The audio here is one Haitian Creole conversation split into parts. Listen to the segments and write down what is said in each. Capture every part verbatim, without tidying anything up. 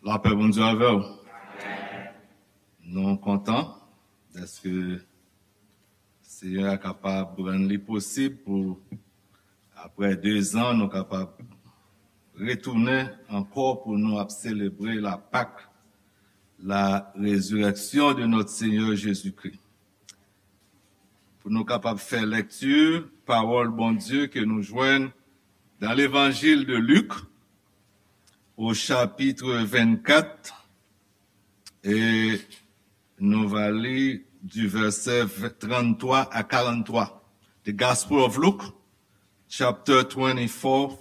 Lapè Bondye avè w. Nou kontan dèske Seyè a kapab rann li posib pou, apre de zan, nou kapab retounen ankò pou nou ap selebre la Pâque, la résurrection de notre Seigneur Jésus-Christ. Pou nou kapab fè lèkti pawòl Bondye ke nou jwenn dans l'Évangile de Luc, au chapitre vingt-quatre, e nou va li du verset trente-trois à quarante-trois. The Gospel of Luke, chapter twenty-four,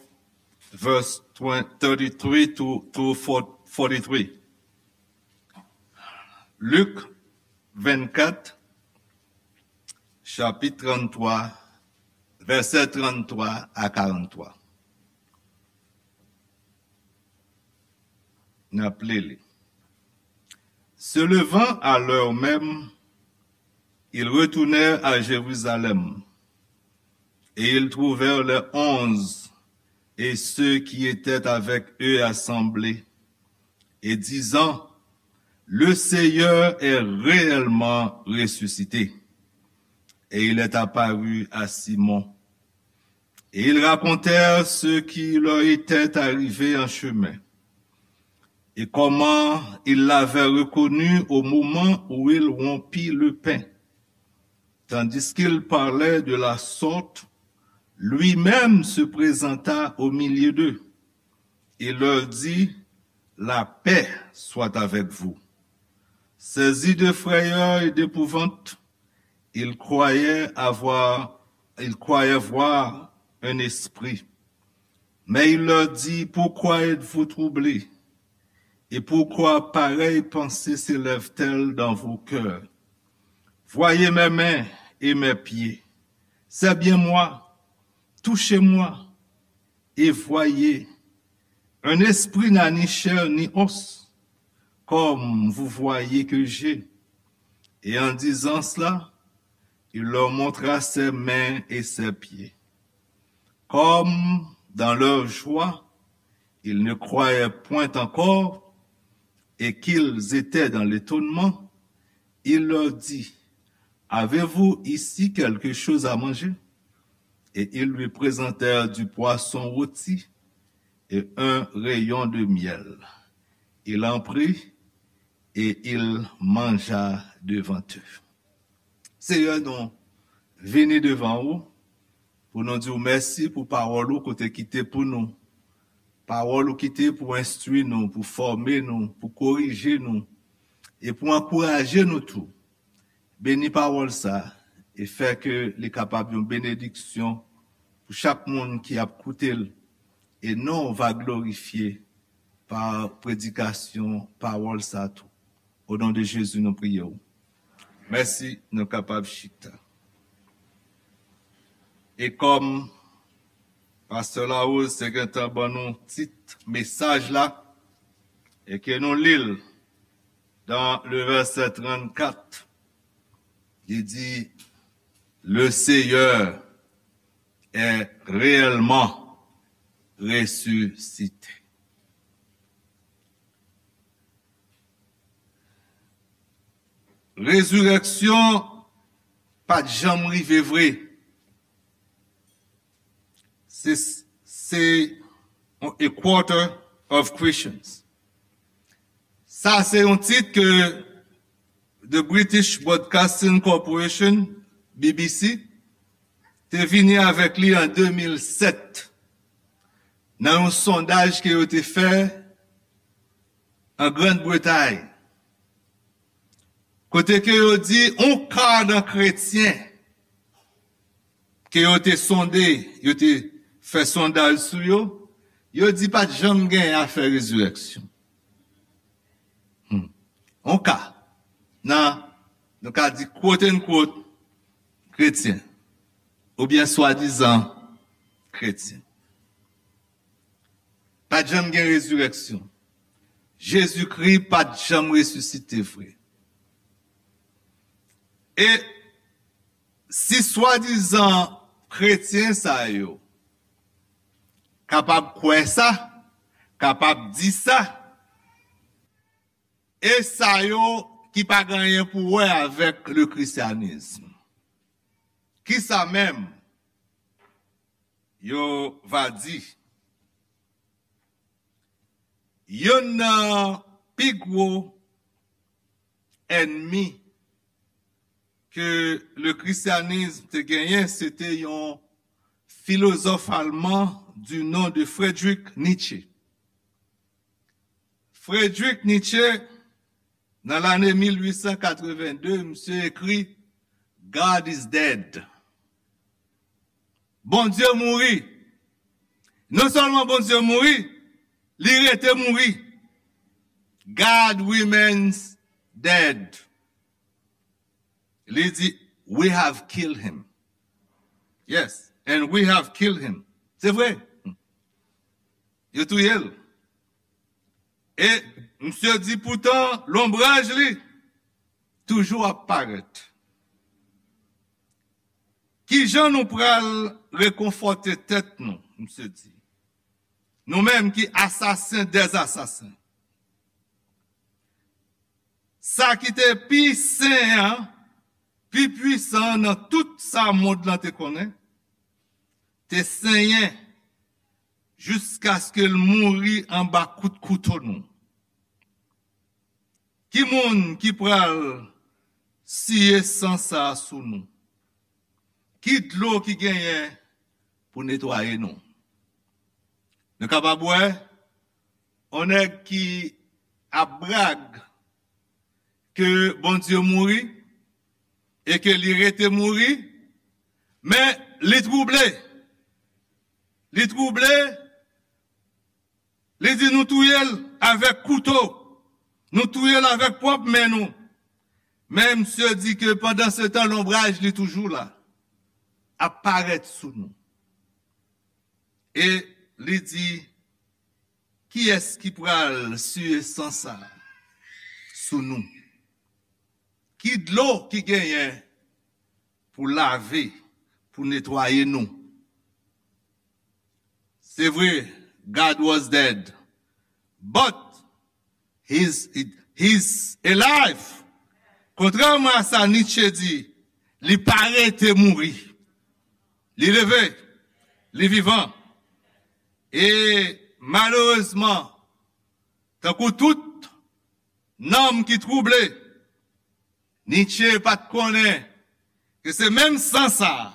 verse twenty, thirty-three to, to forty-three. Lik vennkat, chapit trannntwa, vèsè trannntwa a karannntwa. N ap li li. Se levant à l'heure même, ils retournèrent à Jérusalem, et ils trouvèrent les onze et ceux qui étaient avec eux assemblés, et disant, le Seigneur est réellement ressuscité, et il est apparu à Simon. Et ils racontèrent ce qui leur était arrivé en chemin, et comment il l'avait reconnu au moment où il rompit le pain. Tandis qu'il parlait de la sorte, lui-même se présenta au milieu d'eux et leur dit, la paix soit avec vous. Saisis de frayeur et d'épouvante, ils croyaient avoir, ils croyaient voir un esprit. Mais il leur dit, pourquoi êtes-vous troublés? Et pourquoi pareille pensée s'élève-t-elle dans vos cœurs? Voyez mes mains et mes pieds. C'est bien moi. Touchez-moi et voyez. Un esprit n'a ni chair ni os, comme vous voyez que j'ai. Et en disant cela, il leur montra ses mains et ses pieds. Comme dans leur joie, ils ne croyaient point encore et qu'ils étaient dans l'étonnement, il leur dit, avez-vous ici quelque chose à manger? Et ils lui présentèrent du poisson rôti et un rayon de miel. Il en prit et il mangea devant eux. Seyè, nou vini devan ou pou nou di w mèsi pou pawòl ou ke w te kite pou nou. Pawòl ou kite pou enstwi nou, pou fòme nou, pou korije nou, e pou ankouraje nou tou. Beni pawòl sa a e fè ke li kapab yon benediksyon pou chak moun ki ap koute l, e non w va glorifye pa predikasyon pawòl sa a tou. O non de Jezi, nou priye w. Mèsi, nou kapab chita. E kòm pastè Larose te gentan ban nou tit mesaj la, e ke nou li l dans le verset trannkat, li di, le Seigneur est réellement ressuscité. Rezirèksyon pa t janm rive vre. Se, se a quarter of Christians. Sa se yon tit ke The British Broadcasting Corporation, B B C, te vini avèk li an de mil sèt nan yon sondaj ke yo te fè an Grann Bretay, kote ke yo di yon ka nan kretyen ke yo te sonde, yo te fè sondaj sou yo, yo di pa t janm gen afè rezirèksyon. Hmm. Yon ka nan, nou ka di, quote unquote, kretyen, oubyen swadizan kretyen. Pa t janm gen rezirèksyon. Jezikri pa t janm resisite vre. E si swadizan kretyen sa yo kapab kwè sa, kapab di sa, e sa yo ki pa gen anyen pou wè avèk le christianisme. Kisa menm yo va di? Youn nan pi gwo ènmi ke le christianisme te genyen, se te yon filozòf alman du nom de Friedrich Nietzsche. Friedrich Nietzsche, nan lane mil uit san katrevenn de, misye ekri: "God is dead." Bondye mouri. Non sèlman Bondye mouri, li rete mouri. "God remains dead." Li di, "We have killed him." Yes, and we have killed him. Se vre. Yo touye l. E misye di, "Poutan, lonbraj li toujou ap parèt." Kijan nou pral rekonfòte tèt nou, misye di? Nou menm ki asasen dèzasasen. Sa ki te pi sen an, pi pwisan nan tout sa mond lan te konnen, te senyen jiskaske l mouri anba kout kouto nou. Ki moun ki pral siye san sa a sou nou? Ki dlo ki genyen pou netwaye nou? Nou kapab wè yon nèg ki ap brag ke Bondye mouri e ke li rete mouri, men li twouble. Li twouble, li di, "Nou touye l avèk kouto, nou touye l avèk pwòp men nou." Men misye di ke pandan se tan, lonbraj li toujou la, ap parèt sou nou. E li di, "Kiyès ki pral siye san sa sou nou? Ki dlo ki genyen pou lave, pou netwaye nou?" Se vre, God was dead, but he's, he's alive. Kontrèman a sa Nietzsche di, li pa rete mouri. Li leve, li vivan. E malerezman, tankou tout nanm ki twouble, Nietzsche pa t konnen ke se menm san sa a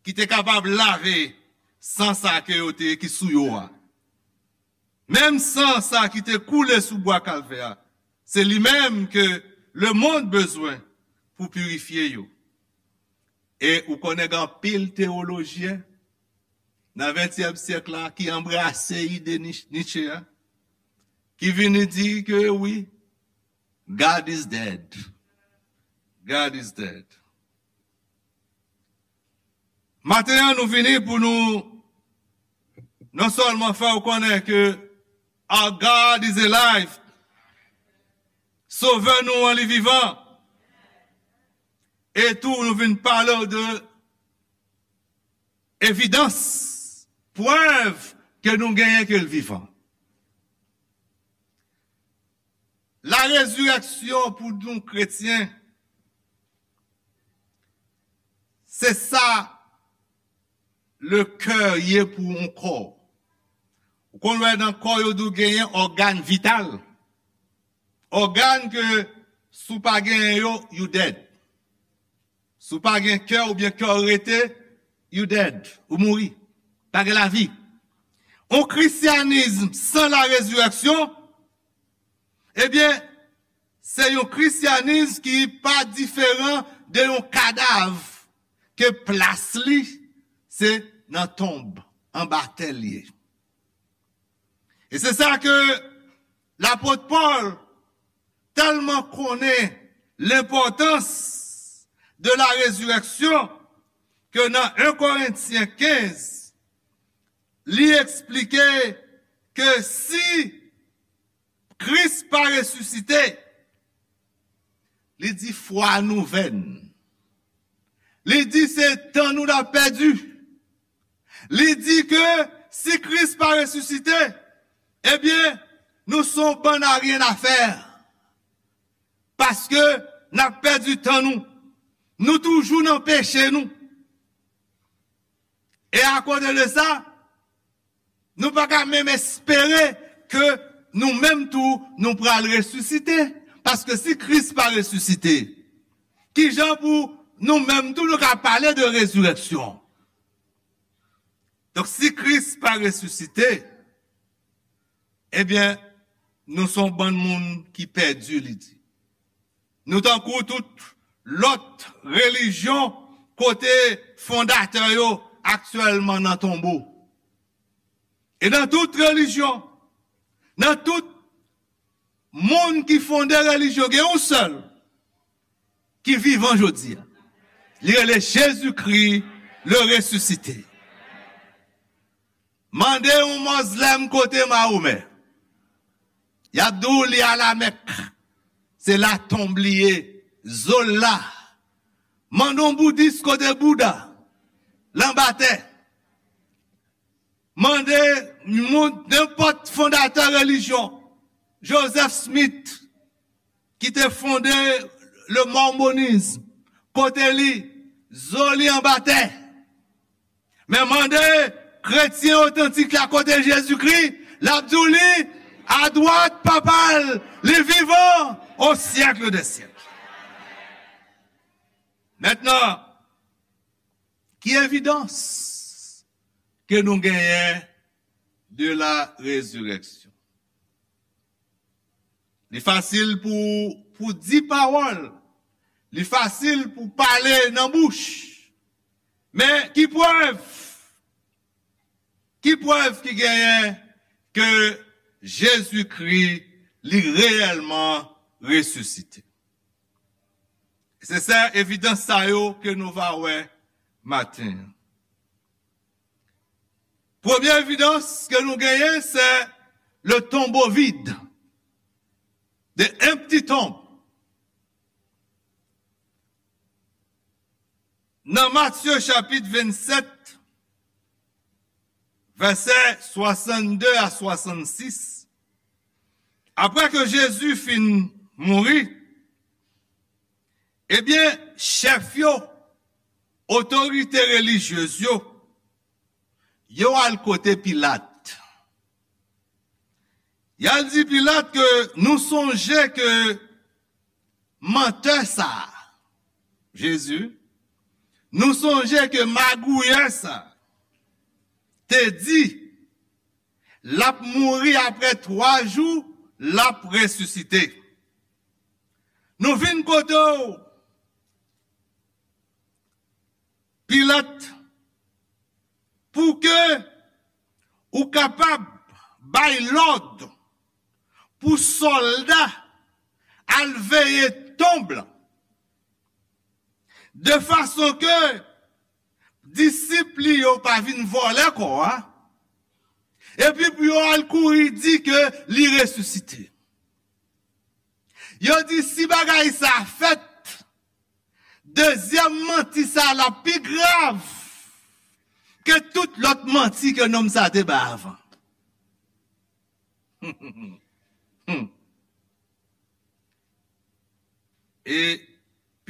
ki te kapab lave san sa ke yo te, ki sou yo a. Menm san sa ki te koule sou bwa Kalvè a, se li menm ke lemonn bezwen pou pirifye yo. E ou konnen gen anpil teyolojyen nan ventyèm syèk la ki anbrase ide Nich-, Nietzsche a, ki vini di ke wi, God is dead. God is dead. Maten an, nou vini pou nou non sèlman fè w konnen ke our God is alive. Sovè nou an, li vivan. E tou, nou vin pale w de evidans, prèv ke nou genyen ke l vivan. La rezireksyon pou nou kretyen, se sa le kè ye pou yon kò. Ou konn wè nan kò yo di w genyen ògàn vital. Ògàn ke si w pa genyen yo, you dead. Si w pa gen kè oubyen kè w rete, you dead. Ou mouri. Pa gen lavi. Yon kristyanis san la rezireksyon, ebyen, se yon kristyanis ki pa diferan de yon kadav ke plas li se nan tonb, anba tè l ye. E se sa ke lapot Pòl tèlman konnen lenpòtans de la rezireksyon ke nan en Korentyen kenz, li eksplike ke si Kris pa resisite, li di fwa nou vèn. Li di se tan nou n ap pèdi. Li di ke si Kris pa resisite, ebyen, nou se yon bann aryen afè. Paske n ap pèdi tan nou. Nou toujou nan peche nou. E akoz de sa, nou pa ka menm espere ke nou menm tou, nou pral resisite. Paske si Kris pa resisite, kijan pou nou menm tou, nou ka pale de rezirèksyon? Donk, si Kris pa resisite, ebyen, nou se yon bann moun ki pèdi, li di. Nou tankou tout lòt relijyon kote fondatè yo aktyèlman nan tonbo. E nan tout relijyon, nan tout moun ki fonde relijyon, gen yon sèl ki vivan jodi a. Li rele Jezikri, le resisite. Mande yon mozlèm kote Mahomè. Y ap di w li a Lamèk. Se la tonb li ye. Zo l la. Mande yon boudis kote Bouda. L anba tè. Mande moun, nenpòt fondatè relijyon, Joseph Smith, ki te fonde le mormonisme, kote li, zo li anba tè. Men mande kretyen otantik la kote Jezikri, l ap di w li adwat Papa l, li vivan au siècle des siècles. Mentnan, ki evidans ke nou genyen de la résurrection? Li fasil pou, pou di pawòl. Li fasil pou pale nan bouch. Men ki prèv? Ki prèv ki genyen ke Jezikri li reyèlman resisite? Se sa evidans sa yo ke nou va wè maten an. Premye evidans ke nou genyen, se le tombeau vide, the empty tomb. Nan Matye chapit vennsèt, vèsè swasannde a swasannsis, apre ke Jezi fin mouri, ebyen, chèf yo, otorite relijyez yo, yo al kote Pilat. Y al di Pilat ke nou sonje ke mantè sa a, Jezi, nou sonje ke magouyè sa a te di l ap mouri apre twa jou, l ap resisite. Nou vin kote w, Pilat, pou ke ou kapab bay lòd pou sòlda al veye tonb lan, de fason ke disip li yo pa vin vòlè kò a, epi pou yo al kouri di ke li resisite. Yo di si bagay sa fèt, dezyèm manti sa la pi grav ke tout lòt manti ke nonm sa te bay avan. E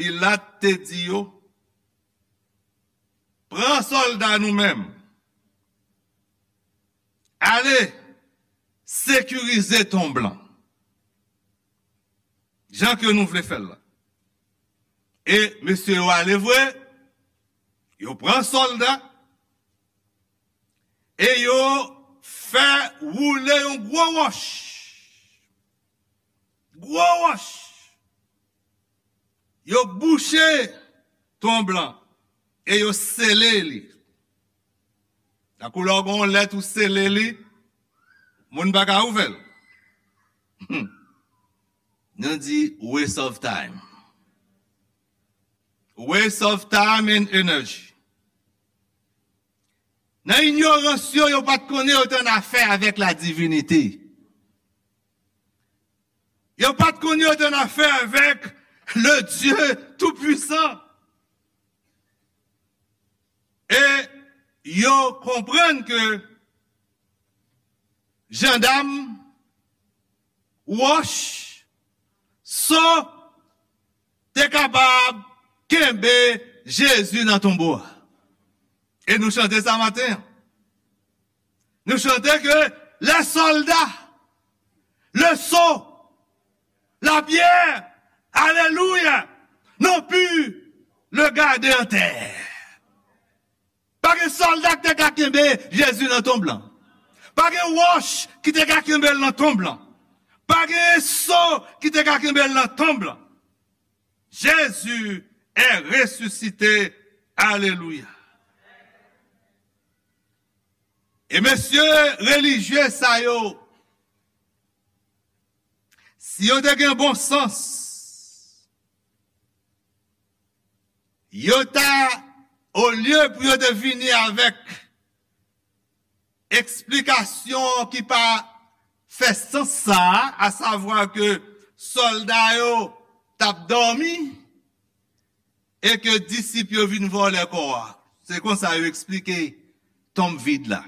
Pilat te di yo, pran sòlda nou menm, ale sekirize tonb lan jan ke nou vle fè l la. E mesye yo ale vre, yo pran sòlda, e yo fè woule yon gwo wòch. Gwo wòch. Yo bouche tonb lan e yo sele li. Tankou lè w gen yon lèt ou sele li, moun pa ka ouvè l. Nou di waste of time. Waste of time and energy. Nan inyorans yo, yo pa t konnen yo te annafè avèk la divinite. Yo pa t konnen yo te annafè avèk le Dieu Tout-Puissant. E yo konprann ke jandam, wòch, so, te kapab kenbe Jezi nan tonbo a. E nou chante sa maten an. Nou chante ke les soldats, le sceau, la pierre, alléluia, n'ont pu le garder en terre. Pa gen sòlda ki te ka kenbe Jezi nan tonb lan. Pa gen wòch ki te ka kenbe l nan tonb lan. Pa gen so ki te ka kenbe l nan tonb lan. Jésus est ressuscité. Alelouya. E mesye relijye sa yo, si yo te gen bon sans, yo ta, olye pou yo te vini avèk eksplikasyon ki pa fè sans sa a, asavwa ke sòlda yo t ap dòmi e ke disip yo vin vòlè kò a. Se konsa yo eksplike tonm vid la.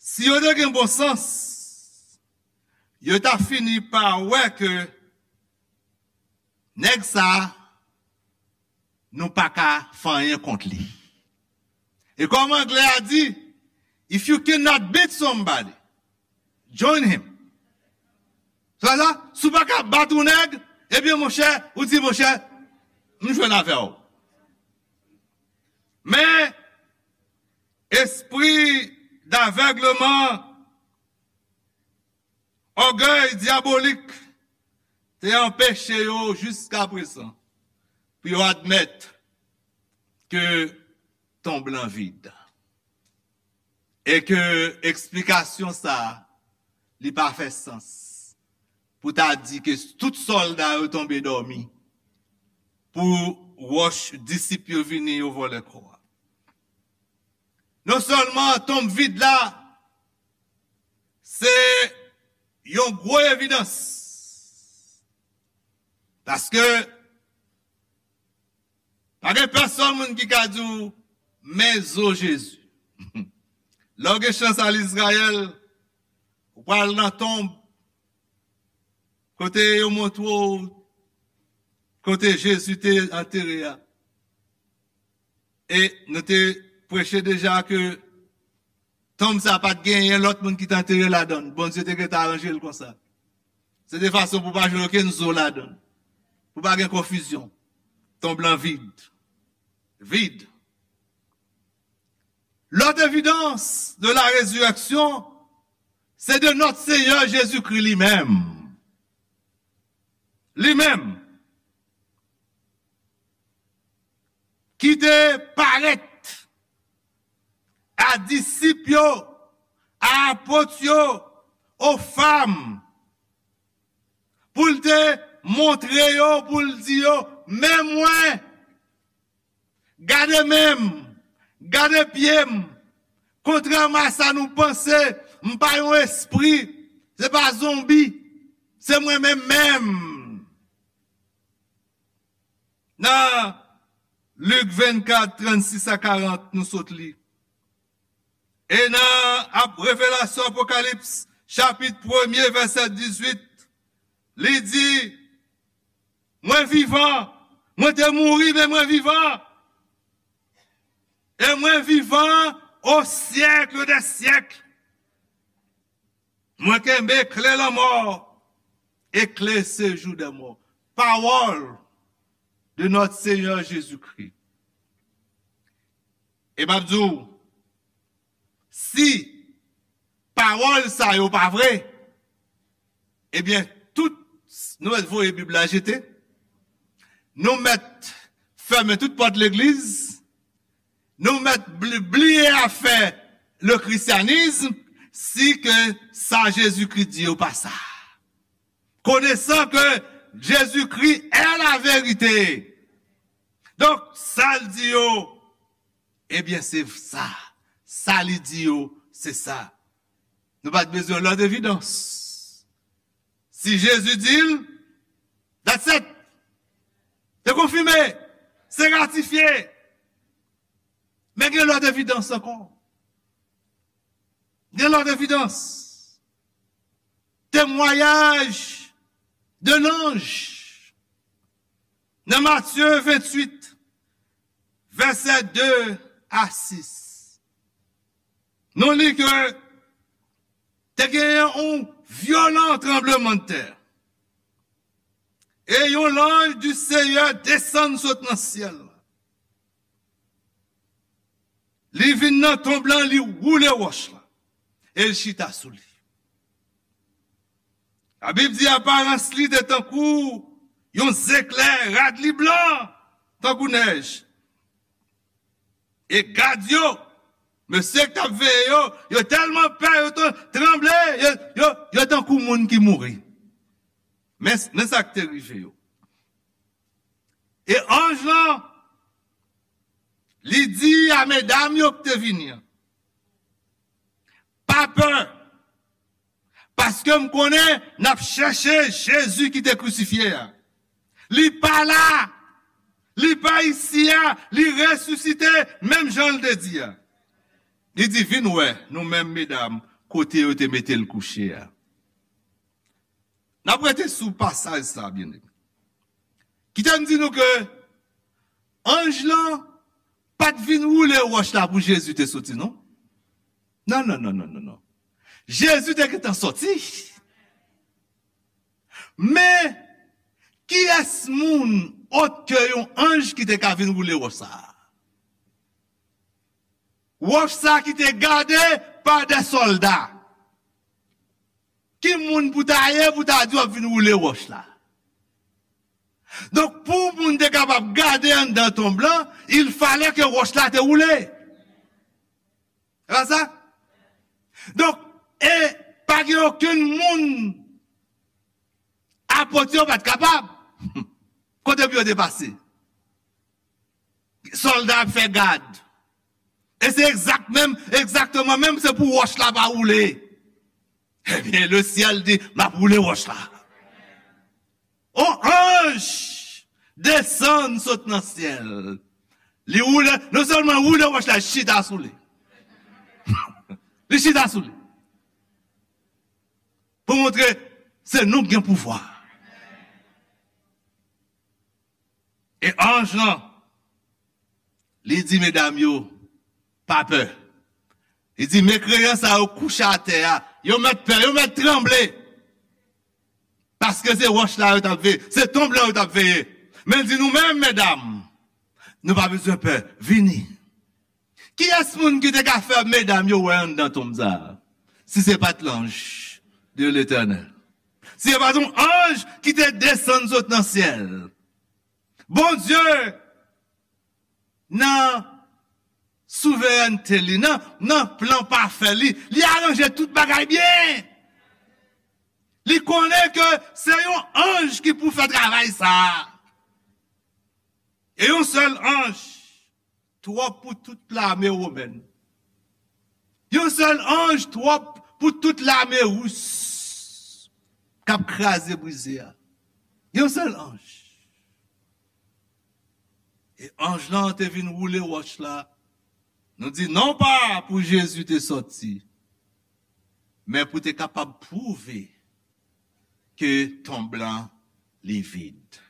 Si yo te gen bon sans, yo ta fini pa wè ke nèg sa a, nou pa ka fè anyen kont li. E kòm anglè a di, if you cannot beat somebody, join him. Sa sa, si w pa ka bat yon nèg, ebyen monchè, ou di monchè, m jwenn avè w. Men, espri davègleman, ògèy dyabolik te anpeche yo jiskaprezan pou yo admèt ke tonb lan vid. E ke eksplikasyon sa a, li pa fè sans pou ta di ke tout sòlda yo tonbe dòmi pou wòch disip yo vini yo vòlè kò a. Non sèlman tonm vid la, se yon gwo evidans. Paske pa gen pèsonn moun ki ka di w, men zo Jezi. Lè w gen chans al Izrayèl, ou pral nan tonb, kote yo montre w kote Jezi te antere a. E nou te preche deja ke tonm sa pa t genyen lòt moun ki t antere ladan l. Bondye te gentan aranje l konsa. Se te fason pou pa jwenn okenn zo ladan l. Pou pa gen konfizyon. Tonm lan vid. Vid. L'autre évidence de la résurrection, c'est de notre Seigneur Jésus-Christ lui-même. Li-menm, ki te parèt a disip yo, a apot yo, o fanm, pou l te montre yo, pou l di yo, men mwen, gade men m, gade pye m, kontrèman a sa nou panse, m pa yon espri, se pa zonbi, se mwen menm menm. Nan Lik vennkat, trannsis a karant, nou sot li. E nan ap-, Revelasyon, Apokalips, chapit premye, vèsè dizuit, li di, mwen vivan, mwen te mouri, men mwen vivan. E mwen vivan o syèk dè syèk. Mwen kenbe kle lanmò e kle sejou dè mò. Pawòl de notre Seigneur Jésus-Christ. E m ap di w, si pawòl sa yo pa vre, ebyen, tout, nou mèt voye Bib la jete, nou mèt fèmen tout pòt legliz, nou mèt bli-, bliye afè le christianisme, si ke sa Jezikri di yo pa sa. Connaissant que Jésus-Christ est la vérité. Donk, sa l di yo, ebyen, se sa. Sa li di yo, se sa. Nou pa t bezwen lòt evidans. Si Jezi di l, that's it. Se konfime. Se ratifye. Men gen lòt evidans ankò. Gen lòt evidans. Temwayaj de lanj. Nan Matye venntuit, vèsè de a sis, nou li ke te genyen yon vyolan tranblemanntè. E yon lanj di Senyè desann sot nan syèl la. Li vin nan tonb lan, li woule wòch la, e l chita sou li. Labib di aparans li te tankou yon zeklè, rad li blan tankou nèj. E gad yo, mesye k t ap veye yo, yo tèlman pè, yo t-, tranble, yo, yo, yo tankou moun ki mouri. Men, men sa k te rive yo. E anj lan, li di a medam yo k te vini an, pa pè, paske m konnen n ap chèche Jezi ki te krisifye a. Li pa la, li pa isi a, li resisite, menm jan l te di a. Li di, vin wè nou menm medam, kote yo te mete l kouche a. N ap rete sou pasaj sa, byeneme. Kite m di nou ke anj lan pa t vin woule wòch la pou Jezi te soti, non. Non, non, non, non, non, non. Jezi te gentan soti. Men, kiyès moun, òt ke yon anj, ki te ka vin woule wòch sa a? Wòch sa ki te gade pa de sòlda. Ki moun pou ta ye pou ta di w ap vin woule wòch la? Donk, pou moun te kapab gade anndan tonb lan, il fallait ke wòch la te woule. Se pa sa? Donk, e pa gen okenn moun, apot yo pa t kapab. Kote pou yo te pase? Sòlda ap fè gad. E se egzak menm, egzakteman menm, se pou wòch la pa woule. Ebyen, le syèl di, m ap woule wòch la. On anj desann sot nan syèl. Li woule, non sèlman woule wòch la, chita sou li. Li chita sou li. Pou montre se nou k gen pouvwa. E anj lan, li di medam yo, pa pè. Li di, mekreyan sa yo kouche atè a, yo mèt pè, yo mèt tranble. Paske se wòch la yo t ap veye, se tonb lan yo t ap veye. Men l di, nou menm, medam, nou pa bezwen pè, vini. Kiyès moun ki te ka fè medam yo wè anndan tonb sa a, si se pa t lanj de Letènèl? Si se pa t yon anj ki te desann sot nan syèl? Bondye, nan souverènte li, nan, nan plan pafè li, li aranje tout bagay byen. Li konnen ke se yon anj ki pou fè travay sa a. E yon sèl anj twòp pou tout lame womèn. Yon sèl anj twòp pou tout lame ris k ap kraze brize a. Yon sèl anj. E anj lan te vin woule wòch la. Nou di non pa pou Jezi te sòti, men pou te kapab pwouve ke tonb lan li vid.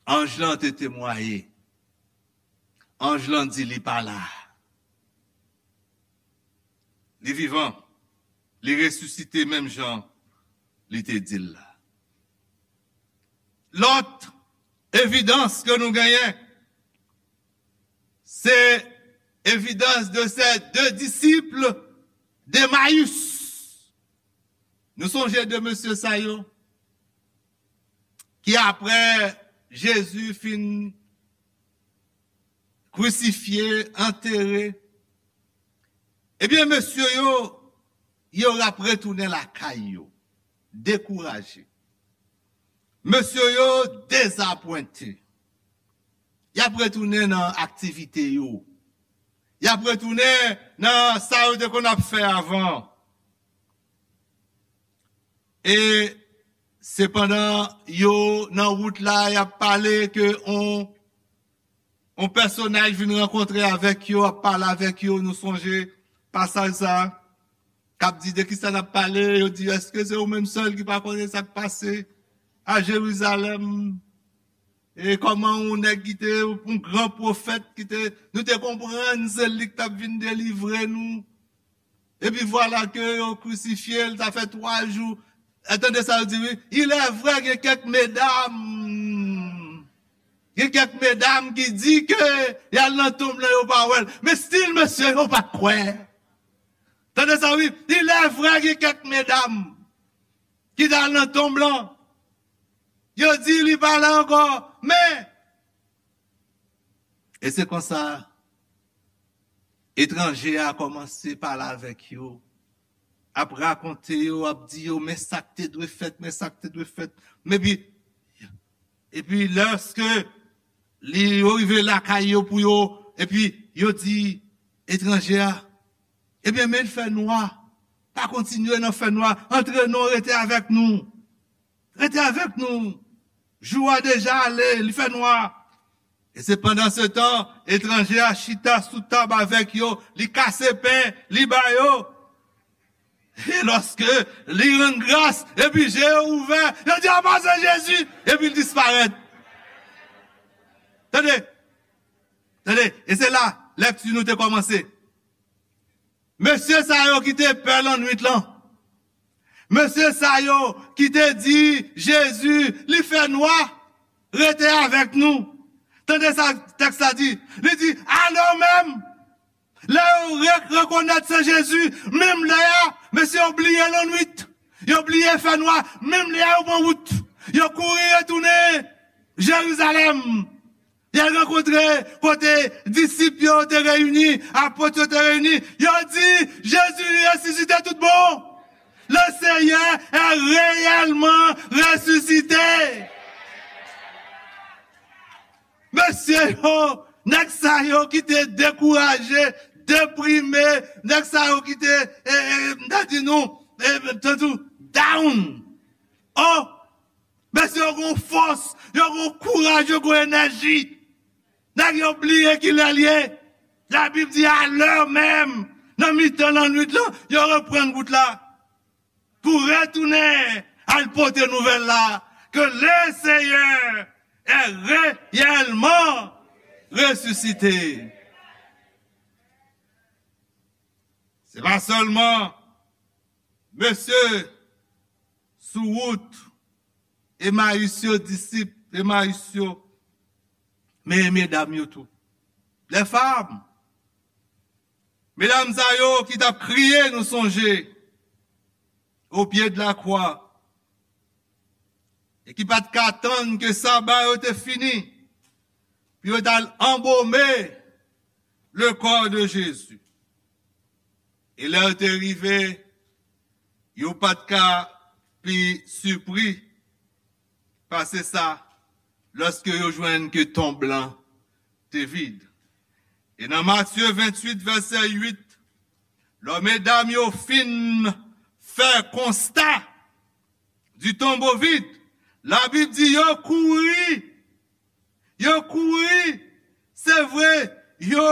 Anj lan te temwaye. Anj lan di li pa la. Li vivan. Li resisite menm jan li te di l la. Lòt evidans ke nou genyen, se evidans de ces deux disciples d'Emmaüs. Nou sonje de mesye sa yo ki apre Jezi fin krisifye, antere, ebyen, mesye yo, yo ap retounen lakay yo, dekouraje. Mesye yo dezapwente. Y ap retounen nan aktivite yo. Y ap retounen nan sa yo te konn ap fè avan. E sepandan yo nan wout la, y ap pale ke on, on pèsonaj vin rankontre avèk yo, ap pale avèk yo, nou sonje pasaj sa a, k ap di de kisa n ap pale, yo di, èske se ou menm sèl ki pa konnen sa k pase a Jerizalèm? e kòman yon nèg ki te yon gran pwofèt, ki te, nou te konprann se li ki t ap vin delivre nou. Epi vwala ke yo krisifye l, sa fè twa jou. E tande sa yo di, wi. Il est vrai, gen kèk medam. Gen kèk medam ki di ke y al nan tonb lan, yo pa wè l. Men still, mesye, yo pa t kwè. Tande sa, wi. Il est vrai, gen kèk medam ki t al nan tonb lan. Yo di li pa la ankò. Men, e se konsa, etranje a kòmanse pale avèk yo, ap rakonte yo, ap di yo, men sa k te dwe fèt, men sa k te dwe fèt. Men epi, epi lèske li, yo rive lakay yo pou yo, epi yo di etranje a, ebyen, men l fè nwa. Pa kontinye nan fè nwa. Antre non, rete avèk nou. Rete avèk nou. Jou a deja ale, li fè nwa. E se pandan se tan, etranje a chita sou tab avèk yo, li kase pen, li ba yo. E lòske li rann gras, epi je yo ouvè, yo di, "A, pa se Jezi," epi l disparèt. Tande, tande, e se la lèkti nou te kòmanse. Mesye sa yo ki te pè lannwit lan. Mesye sa yo ki te di Jezi, li fè nwa, rete avèk nou. Tande sa tèks la di. Li di, alò menm, lè yo re-, rekonèt se Jezi, menm lè a, mesye yo bliye lannwit. Yo bliye fè nwa, menm lè a yo pran wout. Yo kouri retounen Jerizalèm. Y al rankontre kote disip yo te reyini, apot yo te reyini. Yo di, Jezi resisite tout bon. Le Seyè est réellement ressuscité. Mesye yo, nèg sa yo ki te dekouraje, deprime, nèg sa yo ki te, e, e, m ta di nou, e, tantou, down. Oh, mesye yo gon fòs, yo gon kouraj, yo gon enèji. Nèg yo bliye kilè l ye. Labib di, alè menm, nan mitan lannwit lan, yo reprann wout la pou retounen al pote nouvèl la, que le Seigneur est réellement ressuscité. Se pa sèlman mesye sou wout Emayis yo, disip Emayis yo, men medam yo tou. Les femmes, medam sa yo ki t ap kriye, nou sonje, au pied de la croix, e ki pa t ka tann ke saba yo te fini, pou yo t al anbome le corps de Jésus. E lè yo te rive, yo pa t ka pi sipri pase sa, lòske yo jwenn ke tonb lan te vid. E nan Matye venntuit, vèsè uit, lè medam yo fin fè konsta du tombeau vide, Labib di yo kouri, yo kouri, se vre, yo,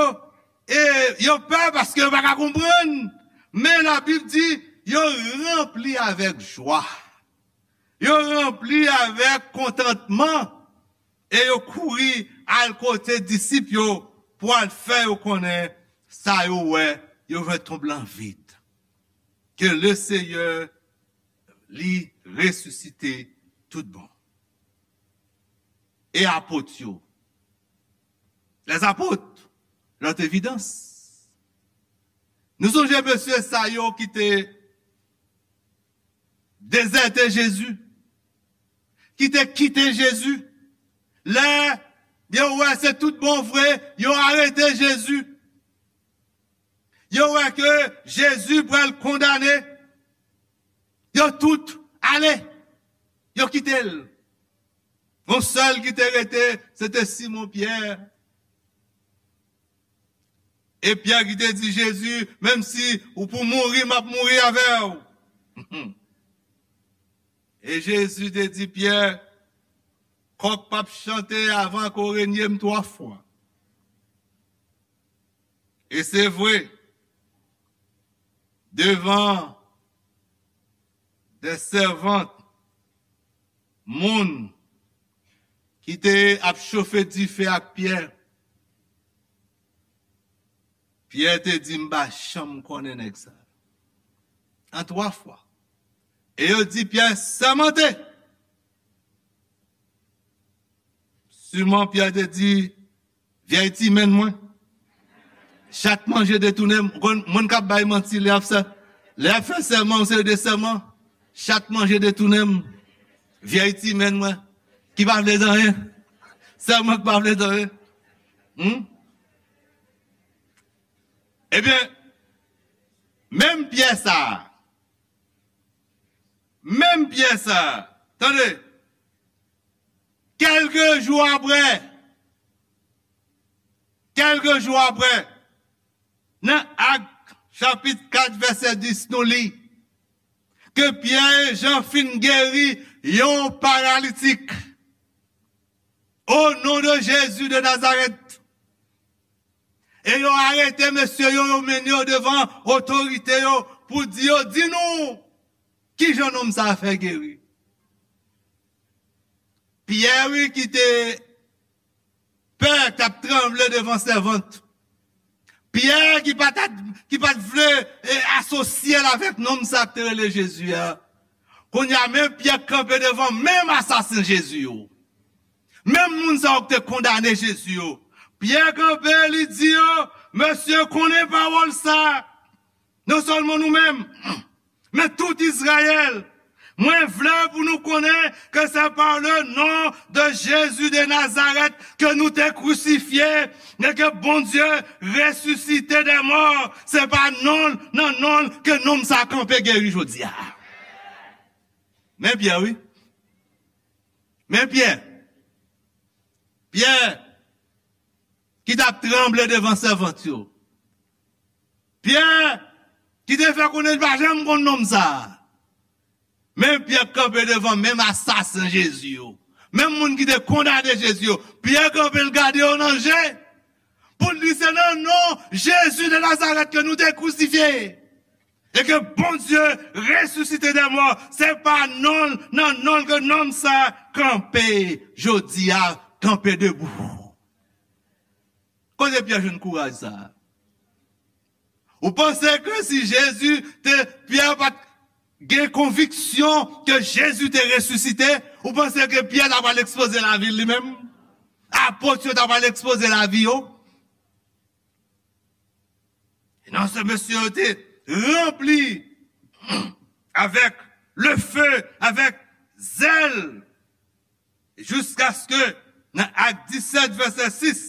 e, yo pè paske yo pa ka konprann, men Labib di yo ranpli avèk jwa. Yo ranpli avèk kontantman e yo kouri al kote disip yo pou al fè yo konnen sa yo wè, yo wè tonb lan vid. Ke le Seyè li resisite tout bon. E apot yo, les apôtres, leur évidence. Nou sonje mesye sa yo ki te dezète Jezi, ki te kite Jezi. Lè yo wè se tout bon vre, yo arete Jezi. Yo wè ke Jezi pral kondane. Yo tout ale. Yo kite l. Yon sèl ki te rete, se te Simon Pyè. E Pyè ki te di Jezi, menm si ou pou mouri, m ap mouri avè w. E Jezi te di Pyè, kòk p ap chante avan ke w renye m twa fwa. E se vre, devan de sèvant, moun ki te ap chofe dife ak Pyè. Pyè te di, "M pa janm konnen nèg sa." An twa fwa. E yo di Pyè, "Sèmante." Siman Pyè te di, "Vyèy ti menn mwen. Chat manje detounen m." Ou konn, moun k ap bay manti, lè y ap fè, lè y ap fè sèman, yon seri de sèman, "Chat manje detounen m. Vyèy ti menn mwen. Ki pa vle zanyen. Sèman ki pa vle zanyen." Hmm? Ebyen, menm Pyè sa a, menm Pyè sa a, tande, kèlke jou apre, kèlke jou apre, nan Ak chapit kat vèsè dis, nou li ke Pyè e Jan fin geri yon paralitik. O non de Jezi de Nazarèt. E yo arete mesye yo, yo mennen yo devan otorite yo pou di yo, "Di nou, kijan nonm sa a fè geri?" Pyè, wi, ki te pè, k t ap tranble devan sèvant. Pyè ki pa t, ki pa t vle, e, asosye l avèk nonm sa k te rele Jezi a. Kounye a, men Pyè kanpe devan menm asasen Jezi yo. Menm moun sa yo k te kondane Jezi yo. Pyè kanpe, li di yo, "Mesye, konnen pawòl sa. Non sèlman nou menm, men tout Izrayèl. Mwen vle pou nou konnen ke se pa le non de Jezi de Nazarèt ke nou te krisifye e ke Bondye resisite dè mò. Se pa non, nan non l ke nonm sa kanpe geri jodi a." Men Pyè, wi. Men Pyè. Pyè ki t ap tranble devan sèvant yo. Pyè ki te fè konnen li pa janm konn nonm sa a. Men Pyè kanpe devan menm asasen Jezi yo. Menm moun ki te kondane Jezi yo. Pyè kanpe, l gade yo nan je. Pou l di, "Se nan non Jezi de Nazarèt ke nou te krisifye e ke Bondye resisite dè mò, se pa non, nan non l ke nonm sa kanpe jodi a, kanpe debou." Kote Pyè jwenn kouraj sa a? Ou panse ke si Jezi te, Pyè pa t gen konviksyon ke Jezi te resisite, ou panse ke Pyè ta pral ekspoze lavi l li menm? Apot yo ta pral ekspoze lavi yo? E non, se mesye yo te ranpli avèk le feu, avèk zèl, jiskaske nan Ak disèt, vèsè sis,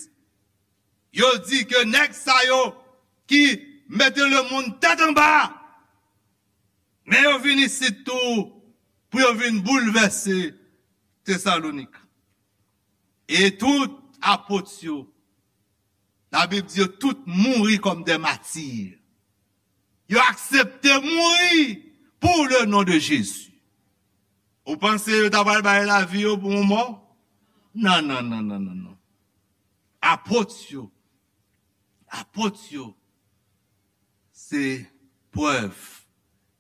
yo di ke nèg sa yo ki mete lemonn tèt anba, men yo vin isit tou pou yo vin boulvèse Tesalonik. E tout apot yo, Labib di yo tout mouri kòm dè mati. Yo aksepte mouri pou le non de Jezi. Ou panse yo ta pral bay lavi yo pou yon mò? Non, non, non, non, non, non. Apot yo, apot yo, se prèv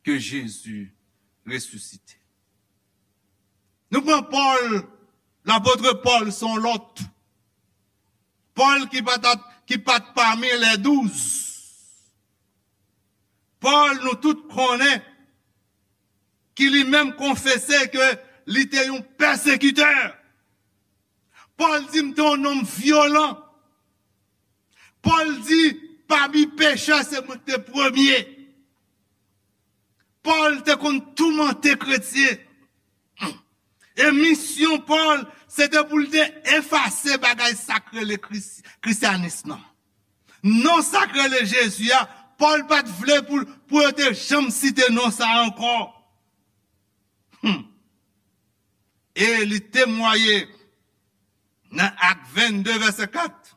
ke Jezi resisite. Nou pran Pòl, lapot Pòl se yon lòt. Pòl ki pa t, ki pa t pami lè douz. Pòl, nou tout konnen, ki li menm konfese ke li te yon pèsekitè. Pòl di, "M te yon nonm vyolan." Pòl di, "Pami pechè, se mwen ki te premye." Pòl te konn toumante kretyen. E misyon Pòl, se te pou l te efase bagay sa k rele kris-, krisyanis nan. Non sa k rele Jezi a, Pòl pa t vle pou, pou yo te janm site non sa a ankò. Hmm. E li temwaye nan Ak vennde, vèsè kat.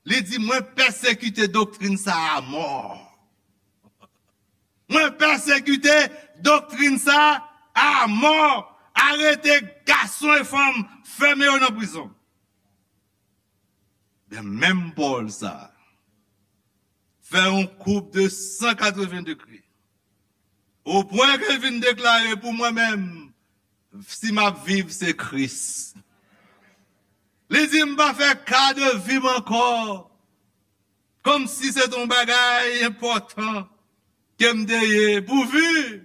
Li di, "Mwen pèsekite doktrin sa a mò. Mwen pèsekite doktrin sa a mò. Arete gason e fanm, fèmen yo nan prizon." Men menm Pòl sa a fè yon koub de san katreven degre. O pwen ke l vin deklare, "Pou mwen menm, si m ap viv, se Kris. Li di, "M pa fè ka de vi m ankò, kòmsi se t on bagay enpòtan ke m te ye, pouvi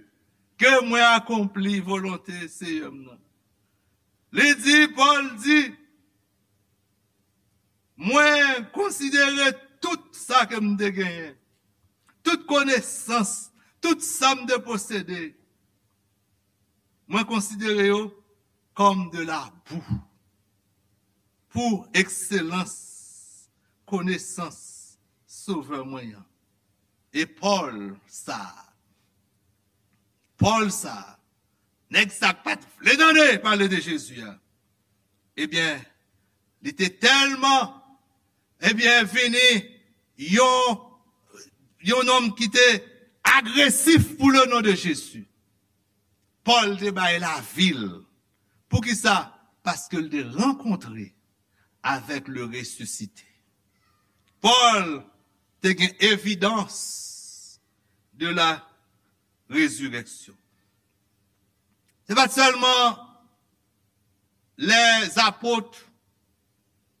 ke mwen akonpli volonte Seyè m nan." Li di, Pòl di, "Mwen konsidere tout sa ke m te genyen, tout konesans, tout sa m te posede, mwen konsidere yo kòm de la boue pou ekselans konesans Sovè mwen an." E Pòl sa, Pòl sa, nèg sa k pa t vle tande pale de Jezi a, ebyen, li te tèlman, ebyen, vini yon, yon nonm ki te agresif pou le non de Jezi. Pòl te bay lavi l. Poukisa? Paske l te rankontre avèk le resisite. Pòl te gen evidans de la rezireksyon. Se pa t sèlman lèzapot,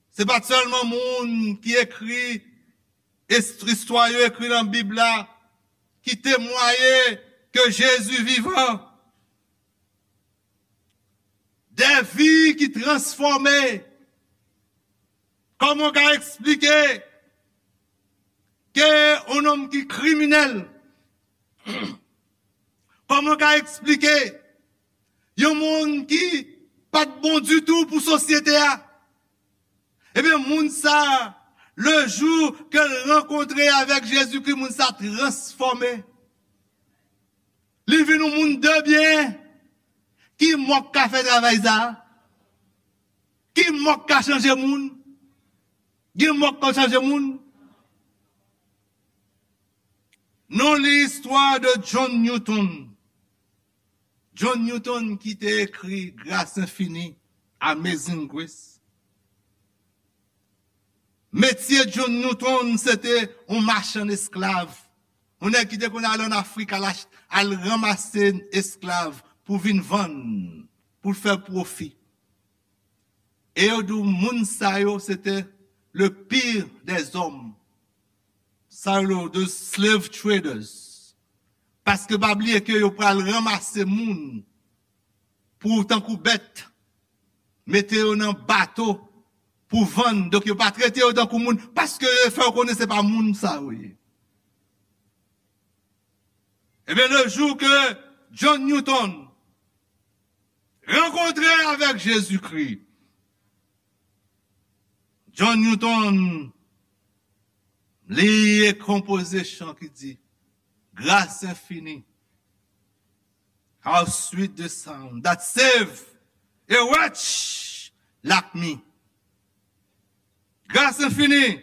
se pa t sèlman moun ki ekri est-, istwa yo ekri nan Bib la ki temwaye ke Jezi vivan. De vi ki transfòme. Kòman w ka eksplike ke yon nonm ki kriminèl, kòman w ka eksplike yon moun ki pa t bon ditou pou sosyete a, ebyen, moun sa, le jou ke l rankontre avèk Jezikri, moun sa transfòme. Li vin yon moun de byen. Ki mò k ka fè travay sa? Ki mò k ka chanje moun? Gen mò k ka chanje moun? Nou li istwa de John Newton. John Newton ki te ekri Grâce Infinie, Amazing Grace. Metye John Newton, se te yon machann esklav. Yon nèg ki te konn al ann Afrik, al ach-, al ranmase esklav pou vin vann, pou l fè pwofi. E yo di w moun sa yo, se te le pire des hommes. Sa yo, the slave traders. Paske pa bliye ke yo pral ranmase moun pou tankou bèt, mete yo nan bato pou vann. Donk, yo pa trete yo tankou moun, paske yo fè yo konnen se pa moun sa yo ye. Ebyen, le jou ke John Newton rankontre avèk Jezikri, John Newton, li konpoze chan ki di, "Grâce infinie, how sweet the sound that save a wretch like me." Gras enfini,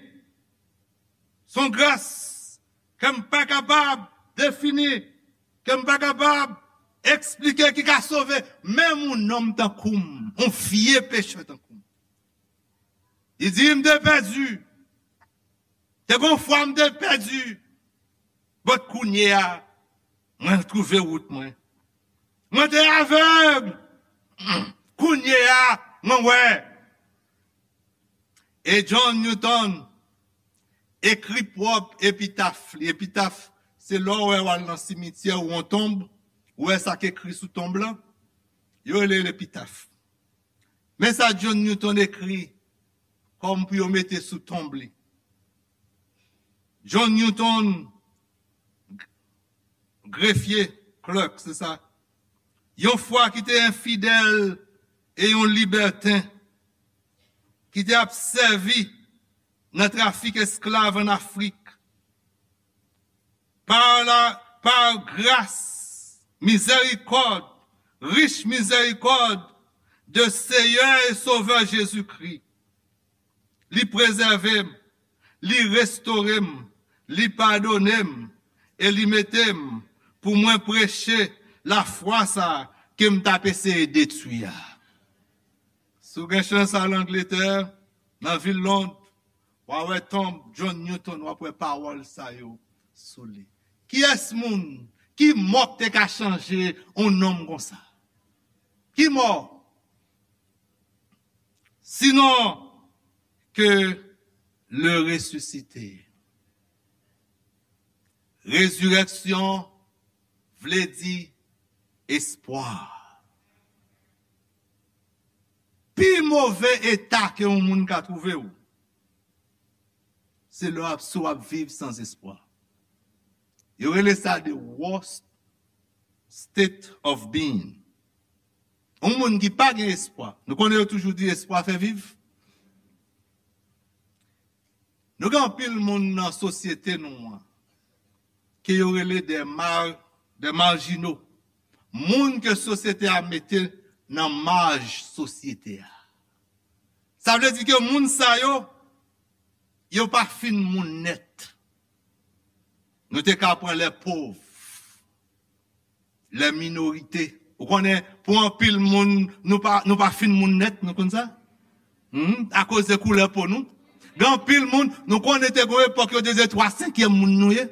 se yon gras ke m pa kapab defini, ke m pa kapab eksplike, ki ka sove menm yon nonm tankou m, yon vye pechè tankou m. Li di, "M te pèdi. Te gon fwa m te pèdi. But kounye a, mwen twouve wout mwen. Mwen te avèg. Kounye a, mwen wè." E John Newton ekri pwòp epitaf li. Epitaf, se lè w wè w al nan simityè ou yon tonb, ou wè sa k ekri sou tonb lan, yo rele l epitaf. Men sa John Newton ekri kòm pou yo mete sou tonb li. John Newton, grefye, clerk, se sa. Yon fwa ki te enfidèl e yon libèten, ki te ap sèvi nan trafik esklav ann Afrik. Par la, par grâce, miséricorde, riche miséricorde de Seigneur et Sauveur Jésus-Christ. Li prezève m, li restore m, li padone m, e li mete m pou mwen preche lafwa sa ke m t ap eseye detwi a. Si w gen chans al Angletè, nan vil Lond, w a wè tonb John Newton, w ap wè pawòl sa yo sou li. Kiyès moun, ki mò k te ka chanje yon nonm konsa? Ki mò? Sinon, que le ressuscité. Rezirèksyon vle di espwa. Pi move eta ke yon moun ka twouve w, se lè w ap, si w ap viv san espwa. Yo rele sa the worst state of being. Yon moun ki pa gen espwa. Nou konnen yo toujou di espwa fè viv. Nou gen anpil moun nan sosyete nou an ke yo rele de mar, de marjino. Moun ke sosyete a mete nan maj sosyete a. Sa vle di ke moun sa yo, yo pa fin moun nèt. Nou te ka pran lè pov, lè minorite. Ou konnen, pou anpil moun, nou pa, nou pa fin moun nèt, nou konn sa? Hmm? Akoz de koulè po nou. Gen anpil moun, nou konnen te gen yon epòk yo te di twa senkyèm moun nou ye.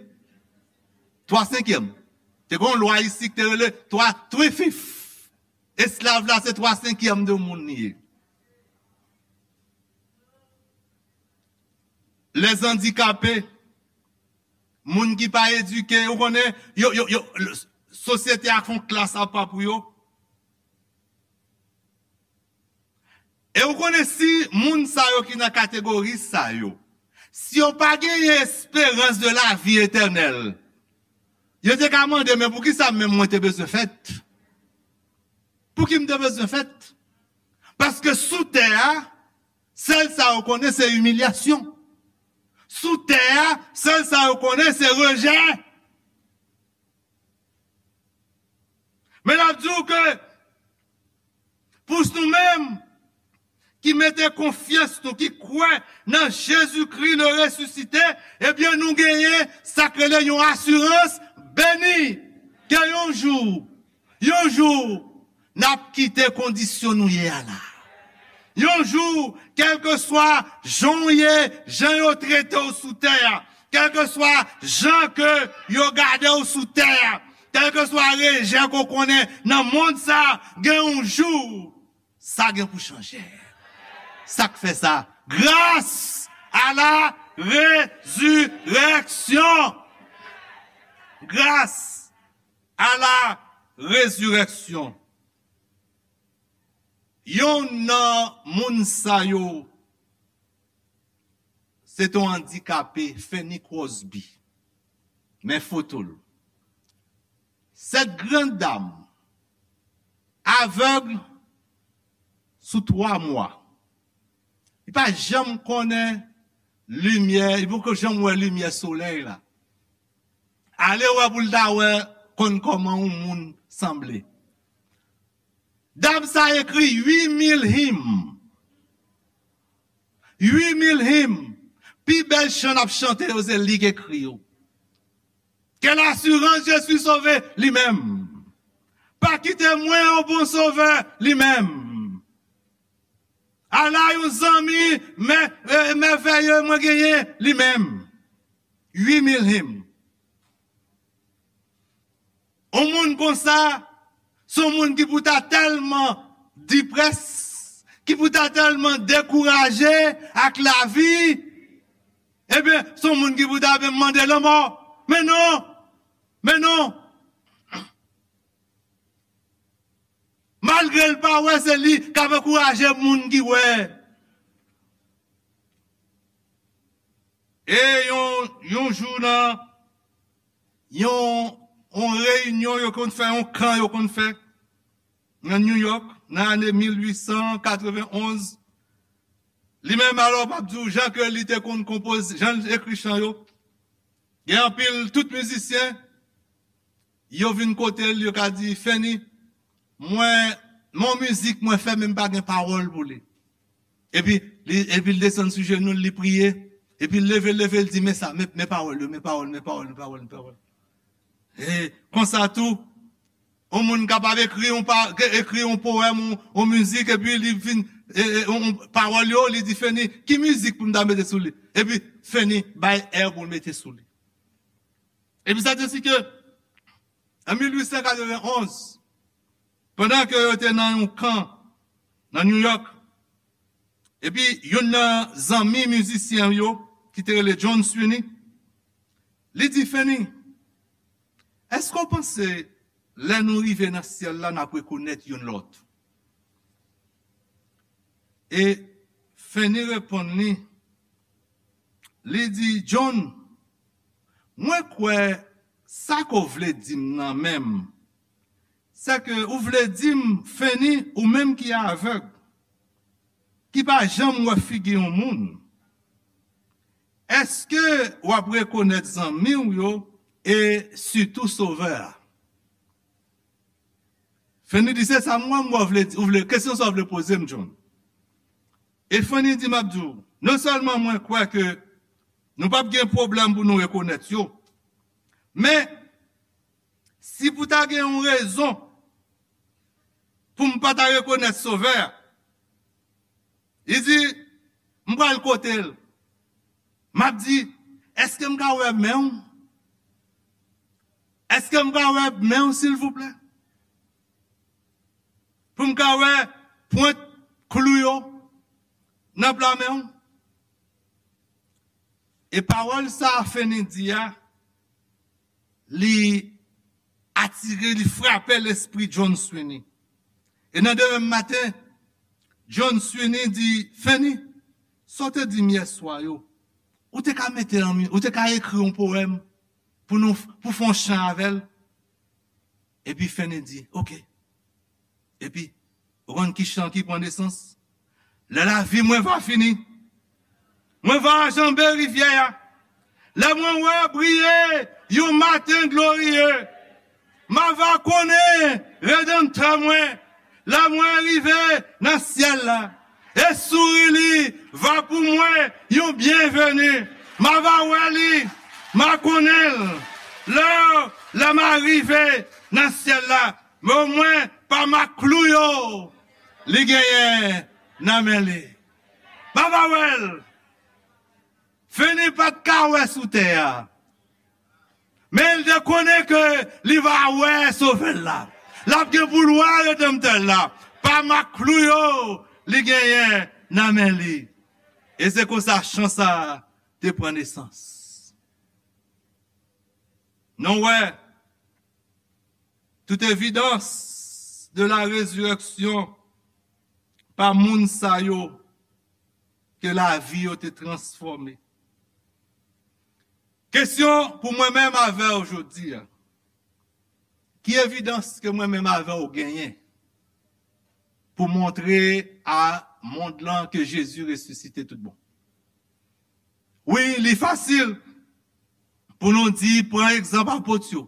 Twa senkyèm. Te gen yon lwa isi ki te rele twa, three fifth. Esklav la se twa senkyèm de moun li ye. Lèzandikape, moun ki pa edike, ou konnen, yo, yo, yo, sosyete a fè yon klas apa pou yo. E ou konnen si moun sa yo ki nan kategori sa yo, si yo pa genyen esperans de la vi etènèl, yo te ka mande, men poukisa menm mwen te bezwen fèt? Pouki m te bezwen fèt? Paske sou tè a, sèl sa yo konnen se imilyasyon. Sou tè a, sèl sa yo konnen se rejè. Men n ap di w ke pou nou menm ki mete konfyans nou, ki kwè nan Jezikri le resisite, ebyen nou genyen sa k rele yon asirans beni ke yon jou, yon jou, n ap kite kondisyon nou ye a la. Yon jou, kèlkeswa jan w ye, jan yo trete w sou tè a, kèlkeswa jan ke yo gade w sou tè a, kèlkeswa rejè ke w konnen nan mond sa, gen yon jou, sa gen pou chanje. Sa k fè sa? Grâce à la résurrection. Grâce à la résurrection. Yonn nan moun sa yo, se te yon andikape, Fanny Crosby. Men foto l. Cette grande dame, aveugle sous trois mois. Li pa janm konnen limyè, li poko janm wè limyè solèy la. Ale wè pou l ta wè konn kòman yon moun sanble. Dam sa ekri uit mil him. Uit mil him. Pi bèl chan n ap chante yo, se li k ekri yo. Quelle assurance, je suis sauvé, li menm. Pa kite mwen, yon bon sovè, li menm. Ala yon zanmi mè, e, mèvèye mwen genyen, li menm. Uit mil him. Yon moun konsa, se yon moun ki pou ta tèlman deprès, ki pou ta tèlman dekouraje ak lavi, ebyen, se yon moun ki pou ta menm mande lanmò. Men non, men non. Malgre l pa wè, se li k ap ankouraje moun ki wè. E yon, yon jou nan yon, yon reyinyon yo konn fè, yon kan yo konn fè nan New York, nan ane mil uit san katrevenn onz, li menm, alò, m ap di w jan ke li te konn konpoze, jan l ekri chan yo. Gen anpil, tout mizisyen, yo vin kote l, yo ka di, Fanny, mwen, men yon mizik mwen fè, men m pa gen pawòl pou li. Epi, li, epi l desann sou jenou l, li priye. Epi l leve, leve, l di, men sa, men, men pawòl yo, men pawòl, men pawòl, men pawòl, men pawòl. E konsa tou, yon moun kapab ekri yon pa, ekri yon powèm, yon, yon mizik, epi li vin, e, e, yon, yon pawòl yo, li di, Fanny, ki mizik pou m ta mete sou li? Epi Fanny bay air pou l mete sou li. Epi sa te si ke, an mil uit san katrevenn onz, pandan ke yo te nan yon kan nan New York, Epi youn nan zanmi mizisyen yo ki te rele John Sweeney, li di Fanny, èske w panse lè nou rive nan syèl la n ap rekonèt youn lòt? E Fanny reponn li, li di, John, mwen kwè sa ke w vle di m nan menm, se ke ou vle di m, Fanny, ou menm ki avèg, ki pa janm wè figi yon moun, èske w ap rekonèt zanmi w yo e sitou Sovè a? Fanny di, se sa m wè, m wè w vle di, ou vle, kesyon sa w vle poze m, John. E Fanny di, m ap di w, non sèlman mwen kwè ke nou p ap gen pwoblèm pou nou rekonèt yo, men si pou ta gen yon rezon pou m pa ta rekonèt Sovè a, li di, m pral kote l. M ap di, èske m ka wè men w? Èske m ka wè men w, silvouplè? Pou m ka wè pwent klou yo nan pla men w? E pawòl sa a Fanny di a, li atire, li frape lespri John Sweeney. E nan demen maten, John Sweeney di, Fanny, sa w te di m yèswa yo, ou te ka mete l an mi-, ou te ka ekri yon powèm pou nou, pou fè yon chan avè l? Epi Fanny di, oke. Epi, ou konn ki chan ki pran nesans? Lè lavi mwen va fini, mwen va janbe rivyè a. Lè mwen wè briye yon maten gloriye, m a va konnen Redanmtè mwen. Lè mwen rive nan syèl la, e souri li va pou mwen yon byenveni. M a va wè li, m a konnen l. Lè, lè m a rive nan syèl la, men omwen pa maklou yo li genyen nan men li. M a va wè l. Fanny pa t ka wè sou tè a. Men l te konnen ke li va wè Sovè l la. L ap gen pou l wè Redanmtè l la. Pa maklou yo li genyen nan men li. E se konsa chan sa a te pran nesans. Nou wè, toute évidence de la résurrection pa moun sa yo ke lavi yo te transfòme. Kesyon pou mwen menm avè w jodi a, ki evidans ke mwen menm avè w genyen pou montre a mond lan ke Jezi resisite tout bon? Wi, li fasil pou nou di, pran egzanp apot yo.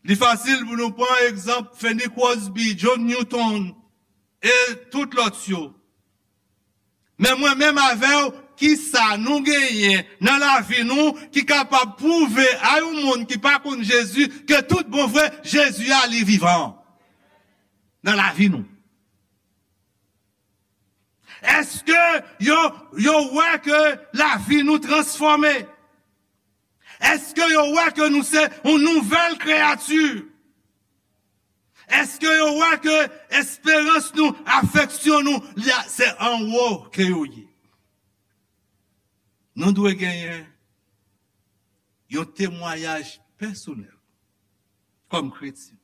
Li fasil pou nou pran egzanp Fanny Crosby, John Newton, e tout lòt yo. Men mwen menm avè w, kisa nou genyen nan lavi nou ki kapab pwouve a yon moun ki pa konn Jezi ke tout bon vre, Jezi a li vivan nan lavi nou? Èske yo, yo wè ke lavi nou transfòme? Èske yo wè ke nou se yon nouvèl kreyati? Èske yo wè ke esperans nou, afeksyon nou, li a, se anwo ke yo ye? Nou dwe genyen yon temwayaj pèsonèl kòm kretyen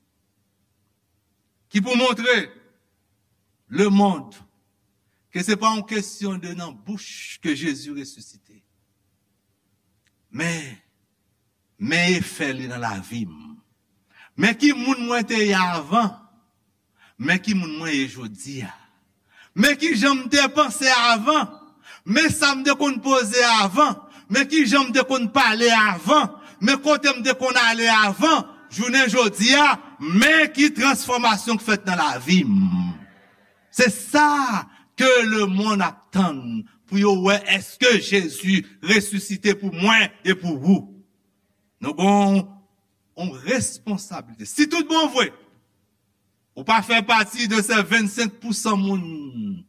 ki pou montre lemonn ke se pa yon kesyon de nan bouch ke Jezi resisite. Men, men efè li nan lavi m. Men ki moun mwen te ye avan. Men ki moun mwen ye jodi a. Men ki jan m te panse avan. Men sa m te konn poze avan. Men ki jan m te konn pale avan. Men kote m te konn ale avan. Jounen jodi a, men ki transfòmasyon k fèt nan lavi m. Se sa ke lemonn ap tann pou yo wè èske Jezi resisite pou mwen e pou ou. Nou gon yon responsablite. Si tout bon vre, ou pa fè pati de se vennsenk pousan moun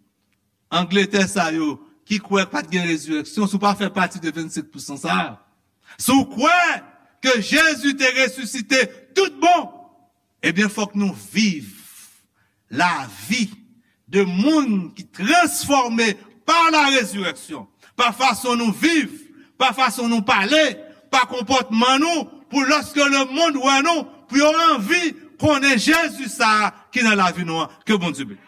Angletè sa yo ki kwè pa t gen rezireksyon, si w pa fè pati de vennsenk pousan sa a, si w kwè ke Jezi te resisite tout bon, ebyen, fòk nou viv lavi de moun ki transfòme pa la rezireksyon, pa fason nou viv, pa fason nou pale, pa konpòtman nou, pou lòske lemonn wè nou, pou yo anvi konnen Jezi sa a ki nan lavi nou an. Ke Bondye beni.